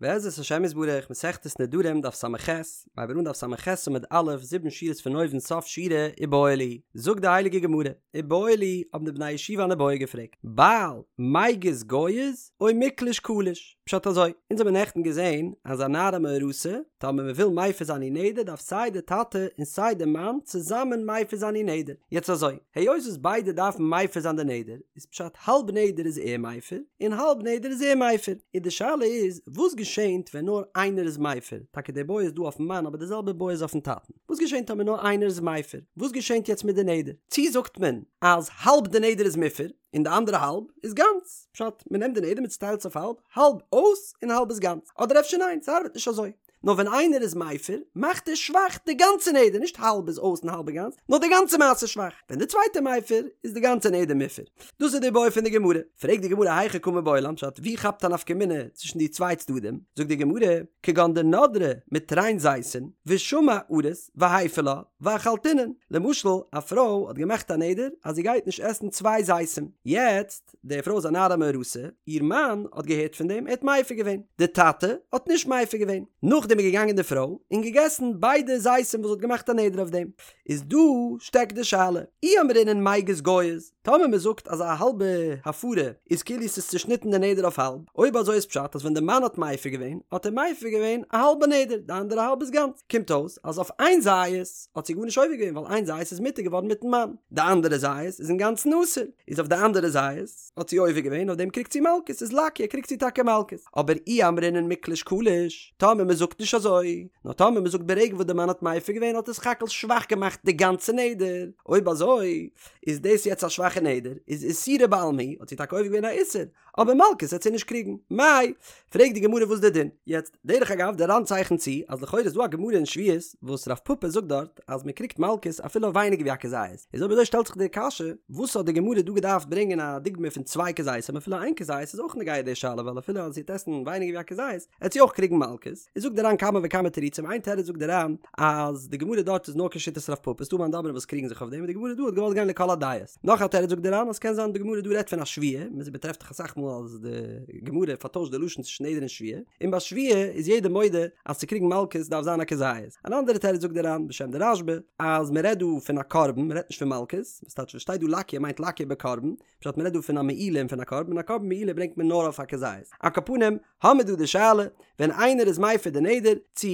בעזרת השם יתברך, מסכת נדרים דף ס"ח, מ'הייבט אן דף ס"ח עמוד א', זיבן שורות פון אויבן סוף שורה, איבעיא להו, זאגט די הייליגע גמרא, איבעיא להו, האבן די בני הישיבה אן איבעיא געפרעגט, בעל מיגז גייז או מיקלש קליש? פשט אזוי, אונז האבן נעכטן געזען אז א נערה מאורסה, טאמער מען וויל מפר זיין איר נדר דארף סיי די טאטע און סיי די מאן צוזאמען מפר זיין איר נדר, יעצט אזוי, היות וואס ביידע דארפן מפר זיין די נדר, איז פשט האלב נדר איז ער מפר און האלב נדר איז ער מפר, און די שאלה איז וואס געשענט ווען נאר איינער איז מפר, טאקע די בעיא איז דא אויפן מאן אבער די זעלבע בעיא איז אויפן טאטן, וואס געשענט טאמער נאר איינער איז מפר, וואס געשענט יעצט מיט די נדר, צי זאגט מען אז האלב די נדר איז מופר און די אנדערע האלב איז גאנץ, פשט מען נעמט די נדר מען צוטיילט עס אויף האלב, האלב אויס און האלב איז גאנץ, אדער אפשר ניין ס'ארבעט נישט אזוי. נאר ווען איינער איז מפר, מאכט ער שוואך די גאנצע נדר, נישט האלב איז אויס און האלב איז גאנץ, נאר די גאנצע מעשה איז שוואך, ווען די צווייטע מפר, איז די גאנצע נדר מופר. דאס איז די בעיא פון די גמרא. פרעגט די גמרא היכי קא מיבעיא לן, פשט ווי כאפט א נפקא מינה צווישן די צוויי צדדים, זאגט די גמרא, כגון דנדרה מתרין זיתין, ושמע ארוס והפר לה, ואכלתינן, למשל א פרוי האט געמאכט א נדר אז זי גייט נישט עסן צוויי זיתים, יעצט, די פרוי איז א נערה מאורסה, איר מאן האט געהערט פון דעם, ער האט מפר געווען. די טאטע האט נישט מפר געווען. נאכדעם איז געגאנגען די פרוי און געגעסן ביידע זיתים וואס זי האט געמאכט א נדר אויף דעם. איז דא שטעקט די שאלה. אי אמרינן מיגז גייז, טאמער מען זאגט אז א האלבע הפרה איז כאילו ס'איז צושניטן די נדר אויף האלב, אויב אזוי איז פשט אז ווען די מאן האט מפר געווען, האט ער מפר געווען א האלבע נדר, די אנדערע האלב איז גאנץ. קומט אויס אז אויף איין זית האט זי גארנישט עובר געווען ווייל איין זית איז מותר געווארן מיטן מאן, די אנדערע זית איז אינגאנצן אסור. איז אויף די אנדערע זית האט זי עובר געווען אויף דעם קריגט זי מלקות איז לקיא קריגט זי טאקע מלקות אבער אי אמרינן מיקלש קליש טאמער מען זאגט נישט אזוי נאר טאמער מען זאגט ברגע וואס די מאן האט מפר געווען האט ער סך הכל שוואך געמאכט די גאנצע נדר אויב אזוי איז דאס יעצט א שוואכע נדר איז איסורא בעלמא הוא האט זי טאקע עובר געווען א איסור אבער מלקות וועט זי נישט קריגן מאי פרעגט די גמרא וואס די דין יעצט דרך אגב די ר"ן צייכנט צו אז לכאורה איז דא א גמרא אין שבועות וואס רב פפא זאגט דארט אז מען קריגט מלקות אפילו אויף ווייניגער ווי א כזית, איז אויב אזוי שטעלט זיך די קשיא, וואס האט די גמרא דא געדארפט ברענגען א דוגמא פון צוויי כזיתים אפילו איין כזית איז אויך נוגע די שאלה ווייל אפילו אז זי וועט עסן ווייניגער ווי א כזית עט זי אויך קריגן מלקות, איז זאגט די ר"ן כמה וכמה תירוצים איין תירוץ זאגט די ר"ן אז די גמרא דארט איז נאר כשיטת רב פפא ס'דא מאן דאמרים וואס קריגן זיך אויף דעם און די גמרא דא האט געוואלט גיין לכל הדעות. נאך א תירוץ זאגט די ר"ן אז ס'קען זיין די גמרא דא רעדט פון א שבועה, מ'טרעפט דאך אסאך מאל אז די גמרא פארטוישט די לשון צווישן נדר און שבועה, און ביי שבועה איז יעדער מודה אז צו קריגן מלקות דארף זיין א כזית. אן אנדערע תירוץ זאגט די ר"ן בשם די רשב"א אז מ'רעדט דא פון א קרבן מ'רעדט נישט פון מלקות, וואס טייטש וואס שטייט דא לקיא מיינט לקיא בקרבן, פשט מ'רעדט דא פון א מעילה און פון א קרבן, און א קרבן מעילה ברענגט מען נאר אויף א כזית. על כל פנים, האמיר דא די שאלה, ווען איינער איז מפר די נדר, צו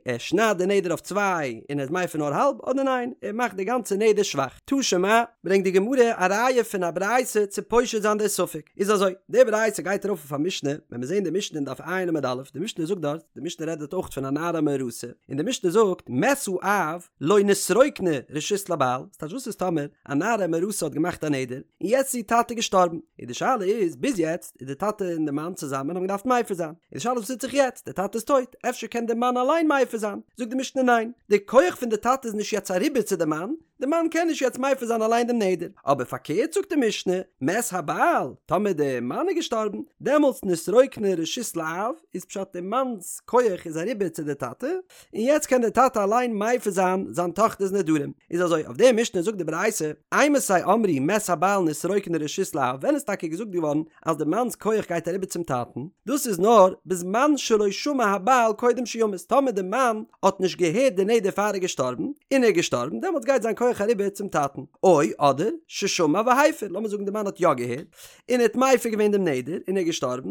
ער שניידט די נדר אויף צוויי און ער איז מפר נאר האלב, אדער ניין, ער מאכט די גאנצע נדר שוואך. תא שמע, ברענגט די גמרא א ראיה פון א ברייתא צו פושט זיין די ספק. איז אזוי, די ברייתא גייט ארויף אויף א משנה, ווען מיר זעען די משנה אין דף ע' עמוד א', די משנה זאגט דארט, די משנה רעדט דארט אויך פון א נערה מאורסה, און די משנה זאגט, מת האב, לא נתרוקנה רשות לבעל, ס'טייטש וואס איז טאמער א נערה מאורסה האט געמאכט א נדר, און יעצט איז איר טאטע געשטארבן, און די שאלה איז, ביז יעצט איז די טאטע און די מאן צוזאמען האבן געדארפט מפר זיין, און די שאלה איז וואס טוט זיך יעצט, די טאטע איז טויט, אפשר קען די מאן אליין מפר זיין, זאגט די משנה ניין, די כח פון די טאטע איז נישט יעצט אריבער צו די מאן, די מאן קען נישט יעצט מפר זיין אליין דעם נדר, אבער פארקערט זאגט די משנה, מת הבעל, טאמער די מאן איז געשטארבן, דעמאלטס נתרוקנה רשות לאב, איז פשט די מאנ'ס כח איז אריבער צו די טאטע, און יעצט קען דער טאטע אליין מפר זיין זיין טאכטער'ס נדרים. איז אזוי, אויף די משנה זאגט די ברייתא, אימתי אמרו מת הבעל נתרוקנה רשות לאב, ווען איז טאקע געזאגט געווארן אז די מאנ'ס כח גייט אריבער צום טאטן? דאס איז נאר בזמן שלא שמע הבעל קודם שימות, טאמער די מאן האט נישט געהערט די נדר פאר ער איז געשטארבן, און ער איז געשטארבן, דעמאלטס גייט זיין כח אריבער צום טאטן. או, אדער, ששמע והפר, לאמיר זאגן די מאן האט יא געהערט, און ער האט מפר געווען דעם נדר, און ער איז געשטארבן,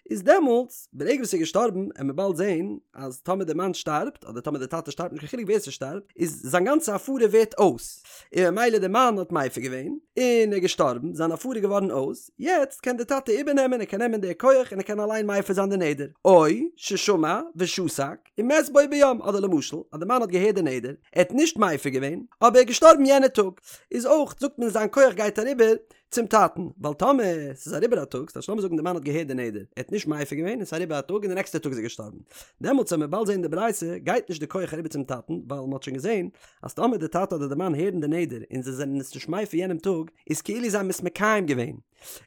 איז דעמאלטס, ברגע וואס ער איז געשטארבן, עמיר באלד זעהן אז טאמער דער מאן שטארבט, אדער טאמער דער טאטע שטארבט, נישט קיין חילוק ווער ס'שטארבט, איז זיין גאנצע הפרה ווערט אויס, און ממילא דער מאן האט מפר געווען, און ער איז געשטארבן, זיין הפרה איז געווארן אויס, יעצט קען דער טאטע איבערנעמען, ער קען נעמען די כח און ער קען אליין מפר זיין די נדר, או ששמע ושתק, ומת בו ביום, אדער למשל, אז דער מאן האט געהערט די נדר, ער האט נישט מפר געווען, אבער ער איז געשטארבן יענע טאג, איז אויך, זאגט מען זיין כח גייט אריבער, צום טאטן, ווייל טאמער ס'איז אריבער א טאג, ס'טייטש לאמיר זאגן די מאן האט געהערט די נדר, ער האט נישט מפר געווען און ס'איז אריבער א טאג און די נעקסטע טאג איז ער געשטארבן, דעמאלטס ווען מ'וועט באלד זען אין די ברייתא גייט נישט די כח אריבער צום טאטן, ווייל מ'האט שוין געזען אז טאמער די טאטע אדער די מאן הערן די נדר און זיי זענען עס נישט מפר יענעם טאג, איז כאילו זיי האבן עס מקיים געווען.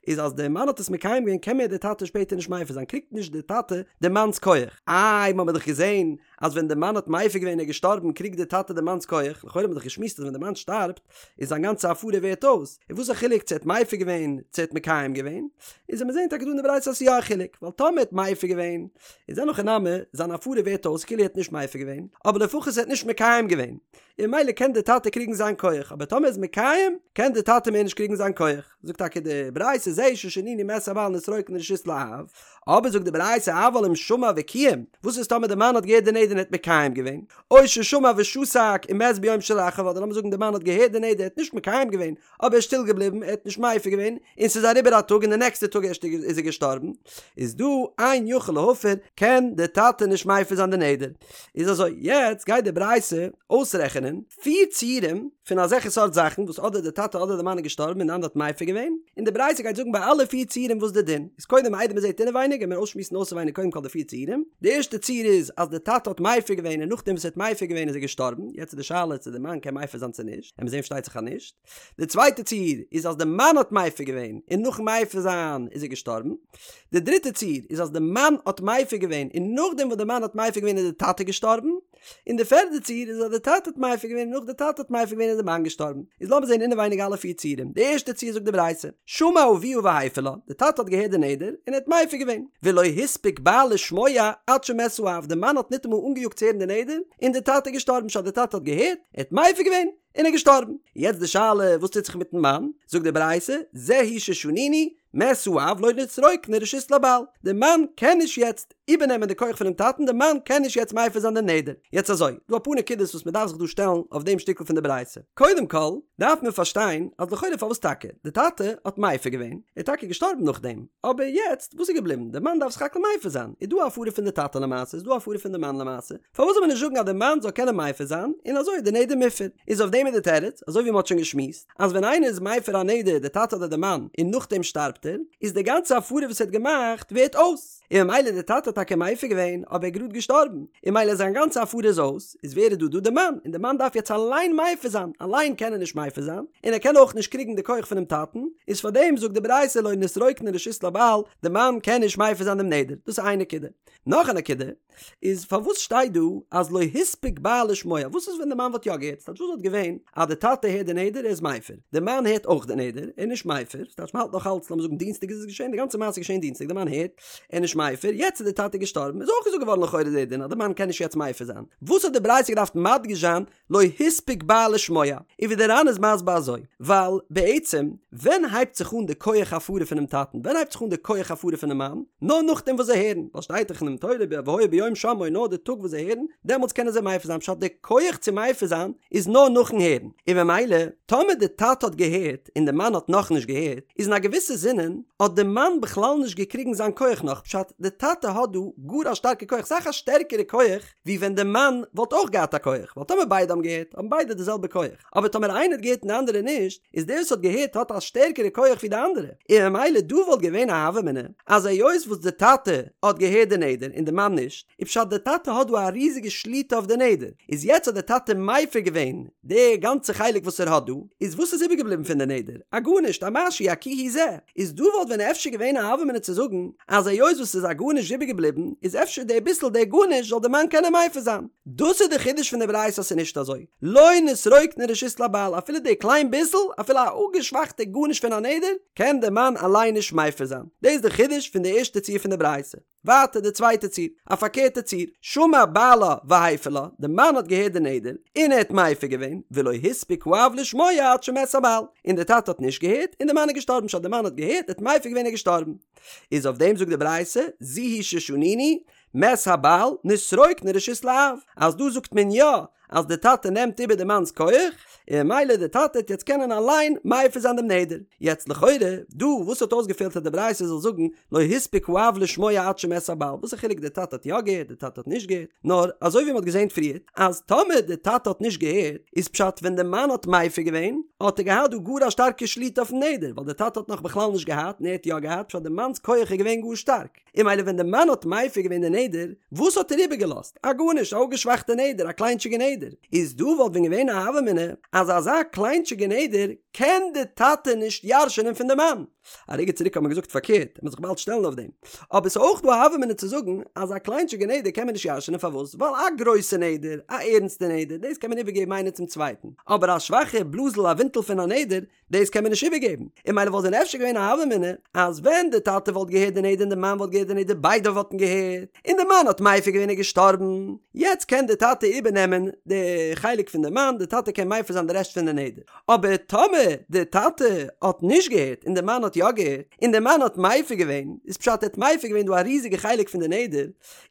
איז אז די מאן האט עס מקיים געווען קען מער די טאטע שפעטער נישט מפר זיין קריגט נישט די טאטע די מאנ'ס כח. איי מ'האמיר דאך געזען אז ווען די מאן האט מפר געווען און איז געשטארבן קריגט די טאטע די מאנ'ס כח, לכאורה האט מען דאך געשמועסט אז ווען די מאן שטארבט איז זיין גאנצע הפרה ווערט אויס, און וואס א חילוק צו ער האט מפר געווען צו ער האט מקיים געווען, איז וועט מען זען טאקע דא אין די ברייתא אז ס'איז יא א חילוק, ווייל טאמער ער האט מפר געווען איז אין הכי נמי זיין הפרה ווערט אויס כאילו ער האט נישט מפר געווען, אבער לפחות ער האט נישט מקיים געווען, און ממילא קען די טאטע קריגן זיין כח, אבער טאמער ער איז מקיים קען די טאטע מער נישט קריגן זיין כח. זאגט טאקע די ברייתא זהו ששנינו מת הבעל נתרוקנה רשות לאב, אבער זאגט די ברייתא אבל אם שמע וקיים, וואס איז טאמער די מאן האט געהערט די נדר און האט מקיים געווען, או ששמע ושתק ומת ביום שלאחריו, אדער לאמיר זאגן די מאן האט געהערט די נדר ער האט נישט מקיים געווען, אבער ער איז שטיל געבליבן ער האט נישט מפר געווען, און ס'איז אריבער א טאג און די נעקסטע טאג ערשט איז ער געשטארבן, איז דא אין יכול להפר, קען די טאטע נישט מפר זיין די נדר. איז אזוי, יעצט גייט די ברייתא אויסרעכענען, פיר ציורים פון אזעלכע סארט זאכן וואס אדער די טאטע אדער די מאן איז געשטארבן און די אנדערע האט מפר געווען, און די ברייתא גייט זאגן ביי אלע פיר ציורים וואס די דין איז, קודם איידער מען זעט אינעווייניג גיימיר אויסשמועסן אויסעווייניג קודם כל די פיר ציורים, די ערשטע ציור איז אז די טאטע האט מפר געווען און נאכדעם וואס ער האט מפר געווען איז ער געשטארבן, יעצט איז די שאלה צו די מאן קען מפר זיין צו נישט, עמיר זען פארשטייט זיך אז נישט. די צווייטע ציור איז אז די מאן האט מפר געווען און נאכן מפר זיין איז ער געשטארבן. די דריטע ציור איז אז די מאן האט מפר געווען און נאכדעם וואס די מאן האט מפר געווען איז די טאטע געשטארבן. און די פערדע ציור איז אז די טאטע האט מפר געווען און נאך די טאטע האט מפר געווען איז די מאן געשטארבן. איז לאמיר זען אינעווייניג אלע פיר ציורים. די ערשטע ציור זאגט די ברייתא, שמע אביה והפר לה, די טאטע האט געהערט די נדר און ער האט מפר געווען. ולא הספיק בעל לשמוע עד שמת האב, די מאן האט ניטאמאל אנגעיאגט צו הערן די נדר און די טאטע איז געשטארבן פשט די טאטע האט געהערט, ער האט מפר געווען, און ער איז געשטארבן. יעצט די שאלה וואס טוט זיך מיטן מאן? זאגט די ברייתא, זו היא ששנינו, מת האב לא נתרוקנה רשות לבעל, די מאן קען נישט יעצט איבערנעמען די כח פונעם טאטן, די מאן קען נישט יעצט מפר זיין די נדר. יעצט אזוי, דא אפאר נקודות וואס מען דארף זיך דא שטעלן אויף דעם שטיקל פון די ברייתא. קודם כל, דארף מען פארשטיין אז לכאורה פארוואס טאקע? די טאטע האט מפר געווען, ער איז טאקע געשטארבן נאכדעם, אבער יעצט וואס איז געבליבן? די מאן דארף סך הכל מפר זיין, איז דא א הפרה פון די טאטע למעשה, איז דא א הפרה פון די מאן למעשה, פארוואס זאל מען נישט זאגן אז די מאן זאל קענען מפר זיין, און אזוי איז די נדר מופר? איז אויף דעם איז די תירוץ, אזוי ווי מען האט שוין געשמועסט, אז ווען איינער איז מפר א נדר, די טאטע אדער די מאן, און נאכדעם שטארבט ער, איז די גאנצע הפרה וואס ער האט געמאכט ווערט אויס, און ממילא די טאטע האט טאקע מפר געווען, אבער ער איז גראד געשטארבן, און ממילא זיין גאנצע הפרה איז אויס, איז ווער איז דא דא די מאן, און די מאן דארף יעצט אליין מפר זיין, אליין קען ער נישט מפר זיין, און ער קען אויך נישט קריגן די כח פונעם טאטן, איז פארדעם זאגט די ברייתא לא נתרוקנה רשות לבעל, די מאן קען נישט מפר זיין דעם נדר, דאס איז איין נקודה. נאך א נקודה, איז פארוואס שטייט דא אז לא הספיק בעל לשמוע? וואס איז ווען די מאן וואלט יא געהערט? ס'טייטש וואס וואלט געווען אז די טאטע הערט די נדר ער איז מפר, די מאן הערט אויך די נדר ער איז נישט מפר, ס'טייטש מ'האלט נאך אלץ לאמיר זאגן דינסטאג איז עס געשען, די גאנצע מעשה איז געשען דינסטאג די מאן הערט ער איז נישט מפר, יעצט איז די טאטע געשטארבן איז אויך געזאגט געווארן לכאורה די דין אז די מאן קען נישט יעצט מפר זיין, וואס האט די ברייתא געדארפט מדגיש זיין לא הספיק בעל לשמוע, און ווי דער ר"ן איז מסביר אזוי, ווייל בעצם ווען הייבט זיך אן די כח הפרה פונעם טאטן, ווען הייבט זיך אן די כח הפרה פונעם מאן, נאר נאכדעם וואס זיי הערן, ווייל שטייט דאך אינעם תורה והיה ביום שמעו נאר די טאג וואס זיי הערן, דעמאלטס קענען זיי מפר זיין, פשט די כח צו מפר זיין איז נאר נאכן הערן, און ממילא טאמער די טאטע האט געהערט און די מאן האט נאכנישט געהערט, איז אין א געוויסע זינען האט די מאן בכלל נישט געקריגן זיין כח נאך, פשט די טאטע האט דא גאר א שטארקע כח, סאך א שטערקערע כח, ווי ווען די מאן וואלט אויך געהאט א כח, ווייל טאמער ביידע האבן געהערט, האבן ביידע די זעלבע כח, אבער טאמער איינער האט געהערט און די אנדערע נישט, איז דער וואס האט געהערט האט א שטערקערע כח ווי די אנדערע, און ממילא דא וואלט געווען א הוה אמינא, אז היות וואס די טאטע האט געהערט די נדר און די מאן נישט, איז פשט די טאטע האט דא א ריזיגע שליטה אויף די נדר, איז יעצט האט די טאטע מפר געווען די גאנצע חלק וואס ער האט דא, איז וואס איז איבערגעבליבן פון די נדר? א גארנישט, א משהו, א כי הוא זה. איז דא וואלט ווען אפשר געווען א הוה אמינא צו זאגן אז היות וואס ס'איז א גארנישט איבערגעבליבן איז אפשר די ביסל די גארנישט זאל די מאן קענען מפר זיין. דאס איז די חידוש פון די ברייתא אז ס'איז נישט אזוי. לא נתרוקנה רשות לבעל אפילו די קליין ביסל אפילו א אפגעשוואכטע גארנישט פון א נדר קען די מאן אליין נישט מפר זיין. דאס איז די חידוש פון די ערשטע ציור פון די ברייתא. ווייטער די צווייטע ציור, א פארקערטע ציור, שמע בעלה והפר לה, די מאן האט געהערט די נדר, און ער האט מפר געווען, ולא הספיק האב לשמוע עד שמת הבעל, און די טאטע האט נישט געהערט, און די מאן איז געשטארבן, פשט די מאן האט געהערט, ער האט מפר געווען ער איז געשטארבן. איז אויף דעם זאגט די ברייתא, זו היא ששנינו, מת הבעל, נתרוקנה רשות לאב, אז דא זאגט מען יא אז די טאטע נעמט איבער די מאנ'ס כח, און ממילא די טאטע העט יעצט קענען אליין מפר זיין דעם נדר. יעצט לכאורה, דא וואס האט אויסגעפעלט אז די ברייתא זאל זאגן לא הספיק האב לשמוע עד שמת הבעל, וואס א חילוק די טאטע האט יא געהערט די טאטע האט נישט געהערט, נאר אזוי ווי מ'האט געזען פריערט אז טאמער די טאטע האט נישט געהערט איז פשט ווען די מאן האט מפר געווען האט ער געהאט דא גאר א שטארקע שליטה אויפן נדר ווייל די טאטע האט נאך בכלל נישט געהאט און ער האט יא געהאט פשט די מאנ'ס כח איז געווען גאר שטארק. און ממילא ווען די מאן האט מפר געווען די נדר, וואס האט ער איבערגעלאזט? א גארנישט, א אפגעשוואכטע נדר, א קליינטשיגע נדר. איז דא וואלט ווען געווען א הוה אמינא אז אזא קליינטשיגע נדר קען די טאטע נישט ירש'ענען פון די מאן. א רגע צוריק האט מען געזאגט פארקערט, מ'וועט זיך באלד שטעלן אויף דעם. אבער ס'איז אויך דא א הוה אמינא צו זאגן אז א קליינטשיגע נדר קען מען נישט ירש'ענען פארוואס? ווייל א גרויסע נדר, א ערנסטע נדר, דאס קען מען איבערגעבן איינער צום צווייטן, אבער א שוואכע בלאזל א ווינטל פון א נדר, דאס קען מען נישט איבערגעבן, און ממילא וואלט דען אפשר געווען א הוה אמינא אז ווען די טאטע וואלט געהערט די נדר און די מאן וואלט געהערט די נדר ביידע וואלטן געהערט, און די מאן האט מפר געווען און געשטארבן, יעצט קען די טאטע איבערנעמען די חלק פון די מאן, די טאטע קען מפר זיין די רעשט פון די נדר, אבער טאמער די טאטע האט נישט געהערט און די מאן האט יא געהערט, און די מאן האט מפר געווען, איז פשט ער האט מפר געווען דא א ריזיגע חלק פון די נדר,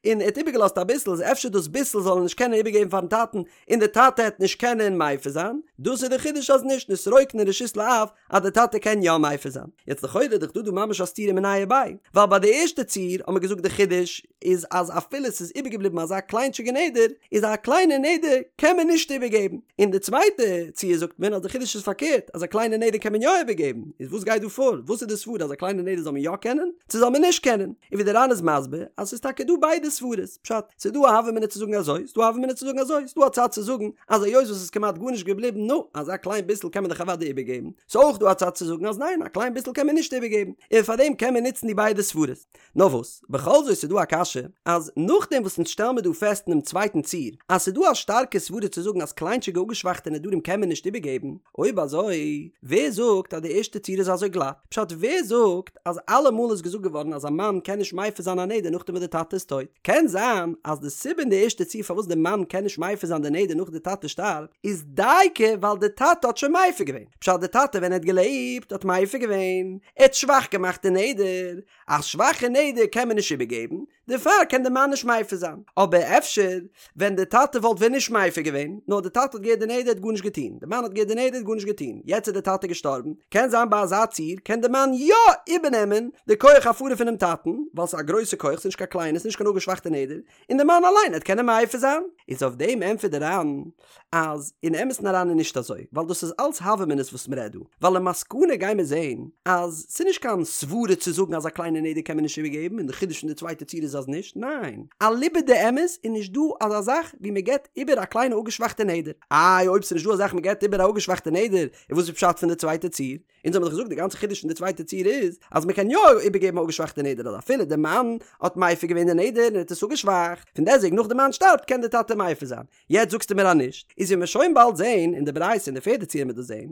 און ער האט איבערגעלאזט אביסל, איז אפשר דאס ביסל זאל ער נישט קענען איבערגעבן פארן טאטן, און די טאטע העט נישט קענען מפר זיין, דאס איז די חידוש אז נישט נתרוקנה רשות לאב אז די טאטע קען יא מפר זיין, יעצט לכאורה איז דאך דא דא ממש א סתירה מיניה וביה, ווייל ביי די ערשטע ציור האט מען געזאגט די חידוש איז אז אפילו ס'איז איבערגעבליבן אזא קליינטשיגע נדר, איז א קליינע נדר קען מען נישט איבערגעבן, און די צווייטע ציור זאגט מען אז די חידוש איז פארקערט אז א קליינע נדר קען מען יא איבערגעבן, איז וואס גייט דא פאר? וואס איז די סברה אז א קליינע נדר זאל מען יא קענען צו זאל מען נישט קענען? און ווי די ר"ן איז מסביר אז ס'איז טאקע דא ביידע סברות, פשט, ס'איז דא א הוה אמינא צו זאגן אזוי, ס'איז דא א הוה אמינא צו זאגן אזוי, ס'איז דא א צד צו זאגן אז היות וואס ס'איז כמעט גארנישט געבליבן, נו, אזא קליין ביסל קען מען דאך אוודאי איבערגעבן. ס'איז אויך דא א צד צו זאגן אז ניין, א קליין ביסל קען מען נישט איבערגעבן, און פארדעם קען מען נוצן די ביידע סברות. נאר וואס, בכל זאת איז דא א קשיא, אז נאכדעם וואס אונז שטעלן מיר דא פעסט אינעם צווייטן ציור, אז ס'איז דא א שטארקע סברה צו זאגן אז קליינטשיגע אפגעשוואכטע נדרים קען מען נישט איבערגעבן, אויב אזוי, ווער זאגט אז די ערשטע ציור איז אזוי גלאט? פשט, ווער זאגט אז אלעמאל איז געזאגט געווארן אז א מאן קען נישט מפר זיין א נדר נאכדעם וואס די טאטע איז טויט? קען זיין אז די סיבה אין די ערשטע ציור פארוואס די מאן קען נישט מפר זיין די נדר נאך די טאטע שטארבט איז דייקא ווייל די טאטע האט שוין מפר געווען. פשט די טאטע ווען ער האט געלעבט האט מפר געווען, ער האט שוואך געמאכט די נדר, א שוואכע נדר קען מען נישט איבערגעבן, דערפאר קען די מאן נישט מפר זיין. אבער אפשר ווען די טאטע וואלט ווען נישט מפר געווען, נאר די טאטע האט געהערט די נדר האט גארנישט געטון, די מאן האט געהערט די נדר האט גארנישט געטון, יעצט איז די טאטע געשטארבן, קען זיין ביי אזא ציור קען די מאן יא איבערנעמען די כח הפרה פונעם טאטן, ווייל ס'איז א גרויסע כח, ס'איז נישט קיין קליינע, ס'איז נישט קיין אפגעשוואכטע נדר, און די מאן אליין העט קענען מפר זיין. איז אויף דעם ענטפערט די ר"ן אז אין אמת'ן אריין איז נישט אזוי, ווייל דאס איז אלץ הוה אמינא'ס וואס מ'רעדט דא, ווייל למסקנא גיימיר זעהן אז ס'איז נישט קיין סברה צו זאגן אז א קליינע נדר קען מען נישט איבערגעבן און די חידוש פון די צווייטע ציור איז אז נישט, ניין, אליבא דאמת איז נישט דא אזא זאך ווי מ'געבט איבער א קליינע אפגעשוואכטע נדר. איי אויב ס'איז נישט דא אזא זאך מ'געבט איבער א אפגעשוואכטע נדר, איז וואס איז פשט פון די צווייטע ציור? אונז האבן דאך געזאגט די גאנצע חידוש פון די צווייטע ציור איז אז מען קען יא איבערגעבן א אפגעשוואכטע נדר אז אפילו די מאן האט מפר געווען די נדר און האט עס אפגעשוואכט, פון דעסוועגן נאך די מאן שטארבט קען די טאטע מפר זיין. יעצט זאגסטו מיר אז נישט, איז ווי מיר שוין באלד זעהן אין די ברייתא אין די פערדע ציור מיר דאס זעהן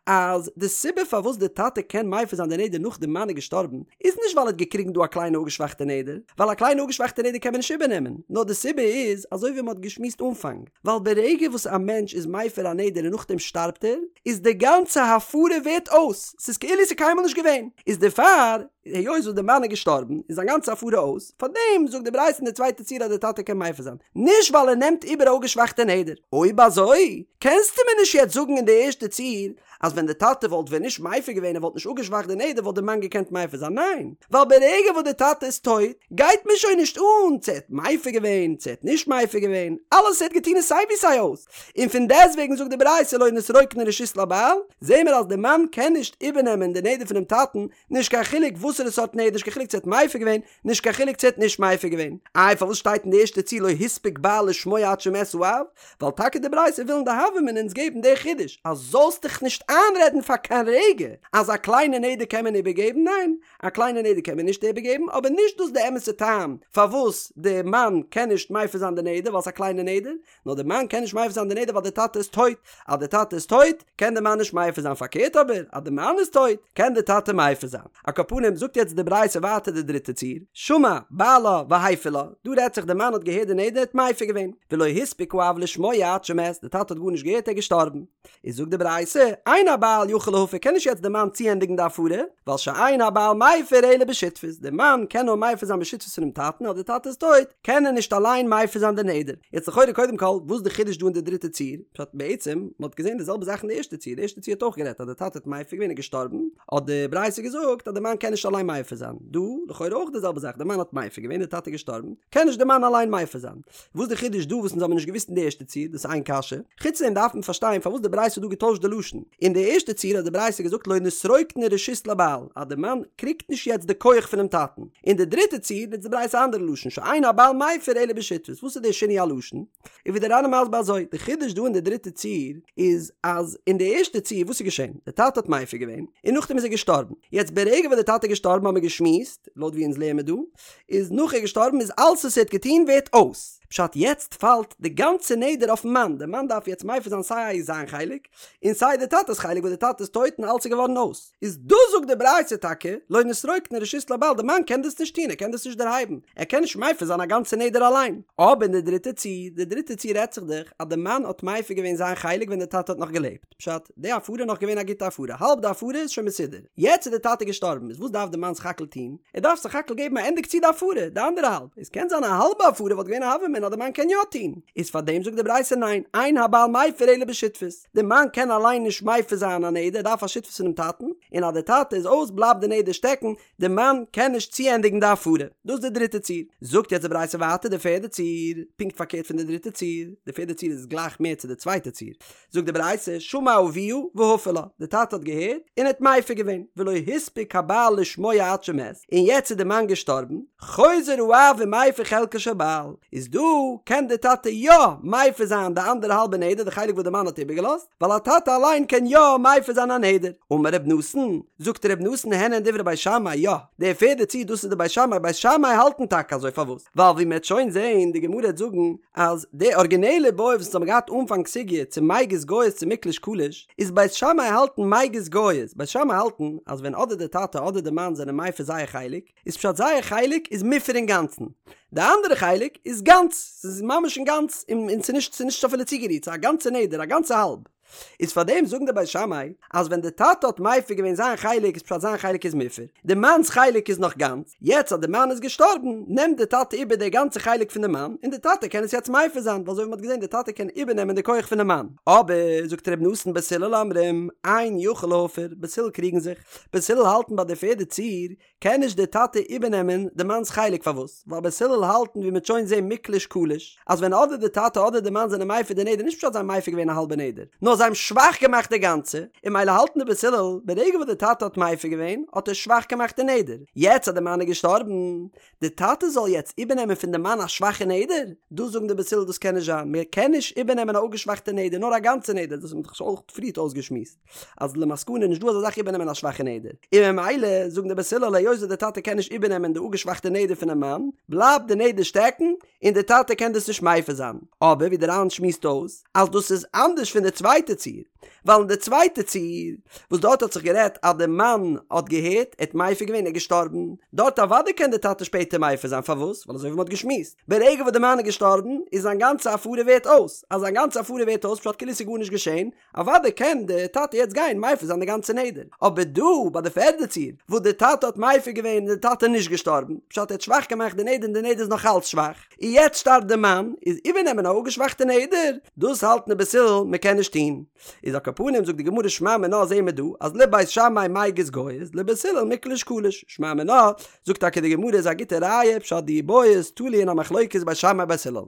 אז די סיבה פארוואס די טאטע קען מפר זיין די נדר נאך די מאן איז געשטארבן איז נישט ווייל ער האט געקריגן דא א קליינע אפגעשוואכטע נדר, ווייל א קליינע אפגעשוואכטע נדר קען מען נישט איבערנעמען, נאר די סיבה איז אזוי ווי מען האט געשמועסט אנפאנג, ווייל ברגע וואס א מענטש איז מפר א נדר און נאכדעם שטארבט ער, איז די גאנצע הפרה ווערט אויס, ס'איז כאילו ס'איז קיינמאל נישט געווען, איז דערפאר, היות וואס די מאן איז געשטארבן, איז זיין גאנצע הפרה אויס, פארדעם זאגט די ברייתא אין די צווייטע ציור אז די טאטע קען מפר זיין, נישט ווייל ער נעמט איבער א אפגעשוואכטע נדר. אויב אזוי, קענסטו מיר נישט יעצט זאגן אין די ערשטע ציור, אז ווען די טאטע וואלט ווען נישט מפר געווען ער וואלט נישט אפגעשוואכט די נדר וואלט די מאן געקענט מפר זיין, ניין, ווייל ברגע וואס די טאטע איז טויט גייט מיר שוין נישט אן צו ער האט מפר געווען צו ער האט נישט מפר געווען, אלעס וואס ער האט געטון איז סיי ווי סיי אויס, און פון דעסטוועגן זאגט די ברייתא לא נתרוקנה רשות לבעל, זעהן מיר אז די מאן קען נישט איבערנעמען די נדר פונעם טאטן, נישט קיין חילוק וואסערע סארט נדר, נישט קיין חילוק צו ער האט מפר געווען, נישט קיין חילוק צו ער האט נישט מפר געווען. איי פארוואס שטייט אין די ערשטע ציור לא הספיק בעל לשמוע עד שמת האב? ווייל טאקע די ברייתא וויל אין די הוה אמינא אונז געבן די חידוש אז זאלסט דיך נישט איינרעדן פאר קיין רגע אז א קליינע נדר קען מען איבערגעבן, ניין, א קליינע נדר קען מען נישט איבערגעבן, אבער נישט דאס די אמת'ע טעם פארוואס די מאן קען נישט מפר זיין די נדר ווייל ס'איז א קליינע נדר, נאר די מאן קען נישט מפר זיין די נדר ווייל די טאטע איז טויט, אז די טאטע איז טויט קען די מאן נישט מפר זיין פארקערט אבער אז די מאן איז טויט קען די טאטע מפר זיין. על כל פנים זאגט יעצט די ברייתא ווייטער די דריטע ציור, שמע בעלה והפר לה, דא רעדט זיך די מאן האט געהערט די נדר האט מפר געווען, ולא הספיק האב לשמוע עד שמת, די טאטע האט גארנישט געהערט ער איז געשטארבן, איז זאגט די ברייתא, אין הבעל יכול להפר קען נישט יעצט די מאן צוענדיגן די הפרה, ווייל שאין הבעל מפר אלא בשותפות, די מאן קען נאר מפר זיין בשותפות פונעם טאטן אז די טאטע איז טויט, קען ער נישט אליין מפר זיין די נדר. יעצט לכאורה קודם כל, וואס די חידוש דא אין די דריטע ציור? פשט בעצם, מען האט געזען די זעלבע זאך אין די ערשטע ציור, די ערשטע ציור האט אויך גערעדט אז די טאטע האט מפר געווען און געשטארבן, האט די ברייתא געזאגט אז די מאן קען נישט אליין. אליין מפר זיין. דא, לכאורה אויך די זעלבע זאך, די מאן האט מפר געווען, די טאטע איז געשטארבן, קען נישט די מאן אליין מפר זיין. וואס די חידוש דא וואס אונז האבן נישט געוואוסט אין די ערשטע ציור, דאס איז איין קשיא. חוץ דעם דארף מען פארשטיין פארוואס די ברייתא האט דא געטוישט די לשון. אין די ערשטע ציור האט די ברייתא געזאגט לא נתרוקנה רשות לבעל, אז די מאן קריגט נישט יעצט די כח פונעם טאטן. אין די דריטע ציור נוצט די ברייתא א אנדערע לשון שאין הבעל מפר אלא בשותפות. וואס איז די שינוי הלשון? און ווי די ר"ן איז מסביר אזוי, די חידוש דא אין די דריטע ציור איז אז אין די ערשטע ציור וואס איז געשען? די טאטע האט מפר געווען און נאכדעם איז ער געשטארבן. יעצט ברגע וואס די טאטע איז געשטארבן האבן מיר געשמועסט, לויט ווי אונז לערן מיר דא, איז נאך ער געשטארבן איז אלס וואס ער האט געטון ווערט אויס. פשט יעצט פאלט די גאנצע נדר אויפן מאן, די מאן דארף יעצט מפר זיין סיי זיין חלק און סיי די טאטע'ס חלק וואס די טאטע איז טויט און אלס איז געווארן אויס. איז דא זאגט די ברייתא טאקע לא נתרוקנה רשות לבעל די מאן קען דאס נישט טון ער קען דאס נישט דערהייבן ער קען נישט מפר זיין א גאנצע נדר אליין. אבער אין די דריטע ציור, די דריטע ציור רעדט זיך דאך אז די מאן האט מפר געווען זיין חלק ווען די טאטע האט נאך געלעבט, פשט, די הפרה איז נאך געווען א גוטע הפרה, האלב די הפרה איז שוין מסודר, יעצט איז די טאטע געשטארבן, איז וואס דארף די מאן סך הכל טון? ער דארף סך הכל געבן א ענדיג צו די הפרה, די אנדערע האלב, איז קען זיין א האלבע הפרה וואלט געווען א הוה אמינא אז די מאן קען יא טון, איז פארדעם זאגט די ברייתא ניין, אין הבעל מפר אלא בשותפות, די מאן קען אליין נישט מפר זיין א נדר, ער דארף א שותפות פונעם טאטן, און אז די טאטע איז אויס בלייבט די נדר שטעקן, די מאן קען נישט צוענדיגן די הפרה. דאס איז די דריטע ציור. זאגט יעצט די ברייתא ווייטער די פערדע ציור, פונקט פארקערט פון די דריטע ציור, די פערדע ציור איז גלייך מער צו די צווייטע ציור. זאגט די ברייתא, שמע אביה והפר לה, די טאטע האט געהערט און האט מפר געווען, ולא הספיק הבעל לשמוע עד שמת, און יעצט איז די מאן געשטארבן, חוזר האב ומפר חלקו של בעל, איז דא קען די טאטע יא מפר זיין די אנדערע האלבע נדר, די חלק וואס די מאן האט איבערגעלאזט, ווייל א טאטע אליין קען יא מפר זיין א נדר. אמר ר' נתן, זאגט ר' נתן הן הן דברי בית שמאי, יא, די פערדע ציור דאס איז די בית שמאי, בית שמאי האלטן טאקע אזוי, פארוואס? ווייל ווי מ'עט שוין זעהן, די גמרא העט זאגן אז די ארגינעלע בעיא וואס אונז האבן געהאט אנפאנג סוגיא צו מיגז גייז צו מיקלש קליש, איז בית שמאי האלטן מיגז גייז, בית שמאי האלטן אז ווען אדער די טאטע אדער די מאן זענען מפר זייער חלק, איז פשט זייער חלק איז מופר אינגאנצן, די אנדערע חלק איז גאנץ, ס'איז ממש אינגאנץ און ס'איז נישט ס'איז נישט אפילו צוגערירט, ס'איז א גאנצע נדר, א גאנצע האלב. איז פארדעם זאגן די בית שמאי אז ווען די טאטע האט מפר געווען זיין חלק איז פשט זיין חלק איז מופר, די מאנ'ס חלק איז נאך גאנץ, יעצט אז די מאן איז געשטארבן נעמט די טאטע איבער די גאנצע חלק פון די מאן און די טאטע קען עס יעצט מפר זיין ווייל אזוי ווי מ'האט געזען די טאטע קען איבערנעמען די כח פונעם מאן. אבער זאגט ר' נתן בית הלל אומרים אין יכול להפר, בית הלל קריגן זיך, בית הלל האלטן ביי די פערדע ציור קען נישט דער טאטע איבערנעמען די מאנ'ס חלק פארוואס? ווייל בית הלל האלטן ווי מ'עט שוין זעהן מיקלש קליש אז ווען אדער די טאטע אדער די מאן זענען מפר די נדר נישט פשט זיי האבן מפר געווען א האלבע נדר נאר זיי האבן שוואך געמאכט די גאנצע און ממילא האלטן די בית הלל ברגע וואס די טאטע האט מפר געווען האט ער שוואך געמאכט די נדר יעצט אז די מאן איז געשטארבן די טאטע זאל יעצט איבערנעמען פון די מאן א שוואכע נדר? דאס זאגן די בית הלל דאס קען נישט זיין מען קען נישט איבערנעמען א אפגעשוואכטע נדר נאר א גאנצע נדר דאס האט מען דאך שוין אויך פריערט אויסגעשמועסט. אז למסקנא איז נישט דא אזא זאך איבערנעמען א שוואכע נדר, און ממילא זאגן די בית הלל היות וואס די טאטע קען נישט איבערנעמען די אפגעשוואכטע נדר פונעם מאן, בלייבט די נדר שטעקן און די טאטע קען דאס נישט מפר זיין. אבער ווי די ר"ן שמועסט אויס אז דאס איז אנדערש פון די צווייטע ציור, ווייל אין די צווייטע ציור וואס דארט האט זיך גערעדט אז די מאן האט געהערט, ער האט מפר געווען, ער איז געשטארבן, דארט אוודאי קען די טאטע שפעטער מפר זיין, פארוואס? ווייל אזוי ווי מען האט געשמועסט, ברגע וואס די מאן איז געשטארבן איז זיין גאנצע הפרה ווערט אויס, אז זיין גאנצע הפרה ווערט אויס פשט כאילו ס'איז גארנישט געשען, אוודאי קען די טאטע יעצט גיין מפר זיין די גאנצע נדר, אבער דא ביי די פערדע ציור וואס די טאטע האט מפר געווען איז די טאטע נישט געשטארבן, פשט ער האט שוואך געמאכט די נדר און די נדר איז נאך אלץ שוואך, און יעצט שטארבט די מאן, איז איבערנעמען א אפגעשוואכטע נדר, דאס האלטן די בית הלל מען קען נישט טון. איז על כל פנים זאגט די גמרא שמע מינה זעהן מיר דא אז לבית שמאי מיגז גייז לבית הלל מיקלש קליש, שמע מינה זאגט טאקע די גמרא איז א גוטע ראיה פשט די בעיא איז תלוי אין א מחלוקת בית שמאי בית הלל.